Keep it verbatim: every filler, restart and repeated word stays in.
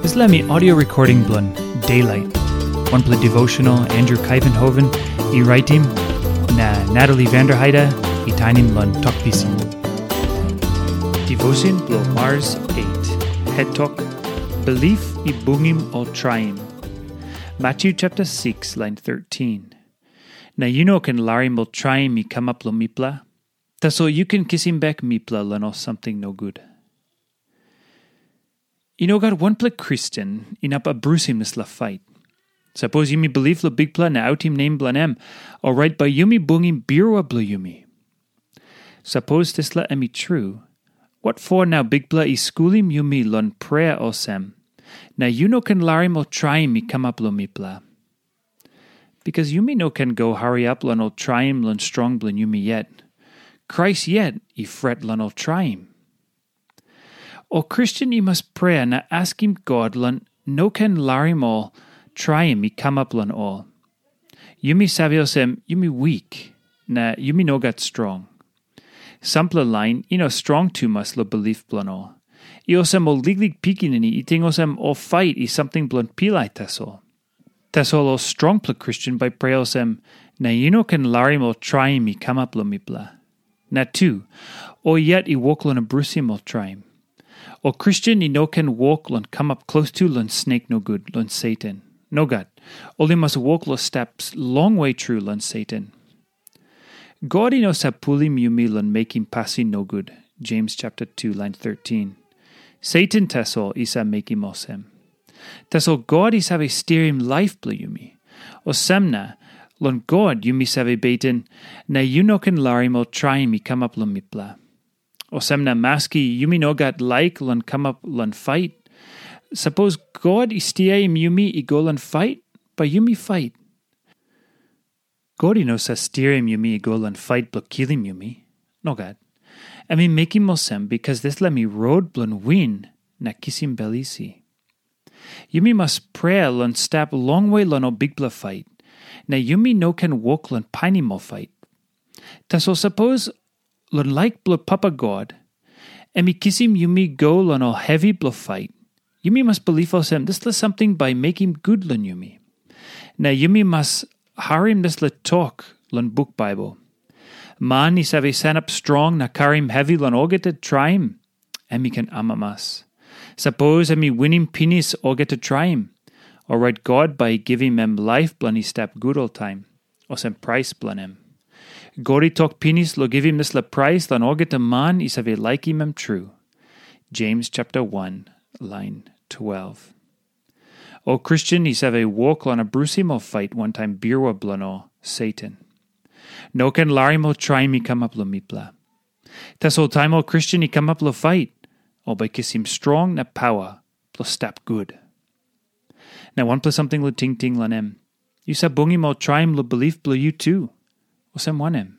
Dispela mi audio recording bilong Daylight, wanpela devotional Andrew Kaivenhoven i raitim, na Natalie Vanderheide i tainim long Tok Pisin. Devotion bilong Mars eight, het tok, Bilip i bungim ol traim. Matthew chapter six, line thirteen. Na yu no ken larim ol traim i kamap long mipela, tasol yu ken kisim bek mipela long ol samting nogut. I no gat wanpela Kristen inap abrusim dispela fait. Sapos yumi bilip long Bikpela na autim nem bilong em, orait bai yumi bungim birua bilong yumi. Sapos dispela em i tru, wat for nau Bikpela i skulim yumi long prea olsem, na yu no ken larim ol traim i kamap long mipela? Bikas yumi no ken go hariap long ol traim long strong bilong yumi yet. Krais yet i fret long ol traim. Ol Kristen i mas prea na askim God long no ken larim ol traim i kamap long ol. Yumi save olsem yumi wik, na yumi no gat strong. Sampela lain i no strong tumas long bilip bilong ol. I olsem ol liklik pikinini i ting olsem ol fait i samting bilong pilai tasol. Tasol ol strongpela Kristen bai prea olsem, na yu no ken larim ol traim i kamap long mipela. Na tu, ol yet i wok long abrusim ol traim. Ol Kristen i no ken wok long kamap klostu long snek nogut long Satan. Nogat, ol i mas wok long stap longwe tru long Satan. God i no sap pulim yumi long mekim pasin nogut, James chapter two, line thirteen. Satan tasol i sap mekim olsem. Tasol God i save stirim laip bilong yumi. Olsem na, long God yumi save beten, na yu no ken larim ol traim i kamap long mipela. Olsem na maski yumi no gat laik long kamap long fait, sapos God i stiaim yumi i go long fait, bai yumi fait. God i no save stirim yumi i go long fait bilong kilim yumi. Nogat. Em i mekim olsem bikas dispela mi rot bilong win na kisim bel isi. Yumi mas prea long stap longwe long ol bikpela fait, na yumi no ken wok long painim ol fait. Tasol sapos long laik bilong Papa God, em i kisim yumi go long ol hevi bilong fait, yumi mas bilip olsem dispela samting bai mekim gut long yumi. Na yumi mas harim dispela tok long buk Baibel. Man i save sanap strong na karim hevi long olgeta traim, em i ken amamas. Sapos em i winim pinis olgeta traim, orait God bai i givim em laip bilong i stap gut oltaim, olsem prais bilong em. God i tok pinis long givim dispela prais long olgeta man i save laikim em tru. James chapter one, line twelve. Ol Kristen i save wok long abrusim ol fait wantaim birua bilong ol Satan. No ken larim ol traim i kamap long mipela. Tasol taim ol Kristen i kamap long fait, ol bai kisim strong na pawa bilong stap gut. Na wanpela samting long tingting long em, yu save bungim ol traim long bilip bilong yu tu. Olsem wanem?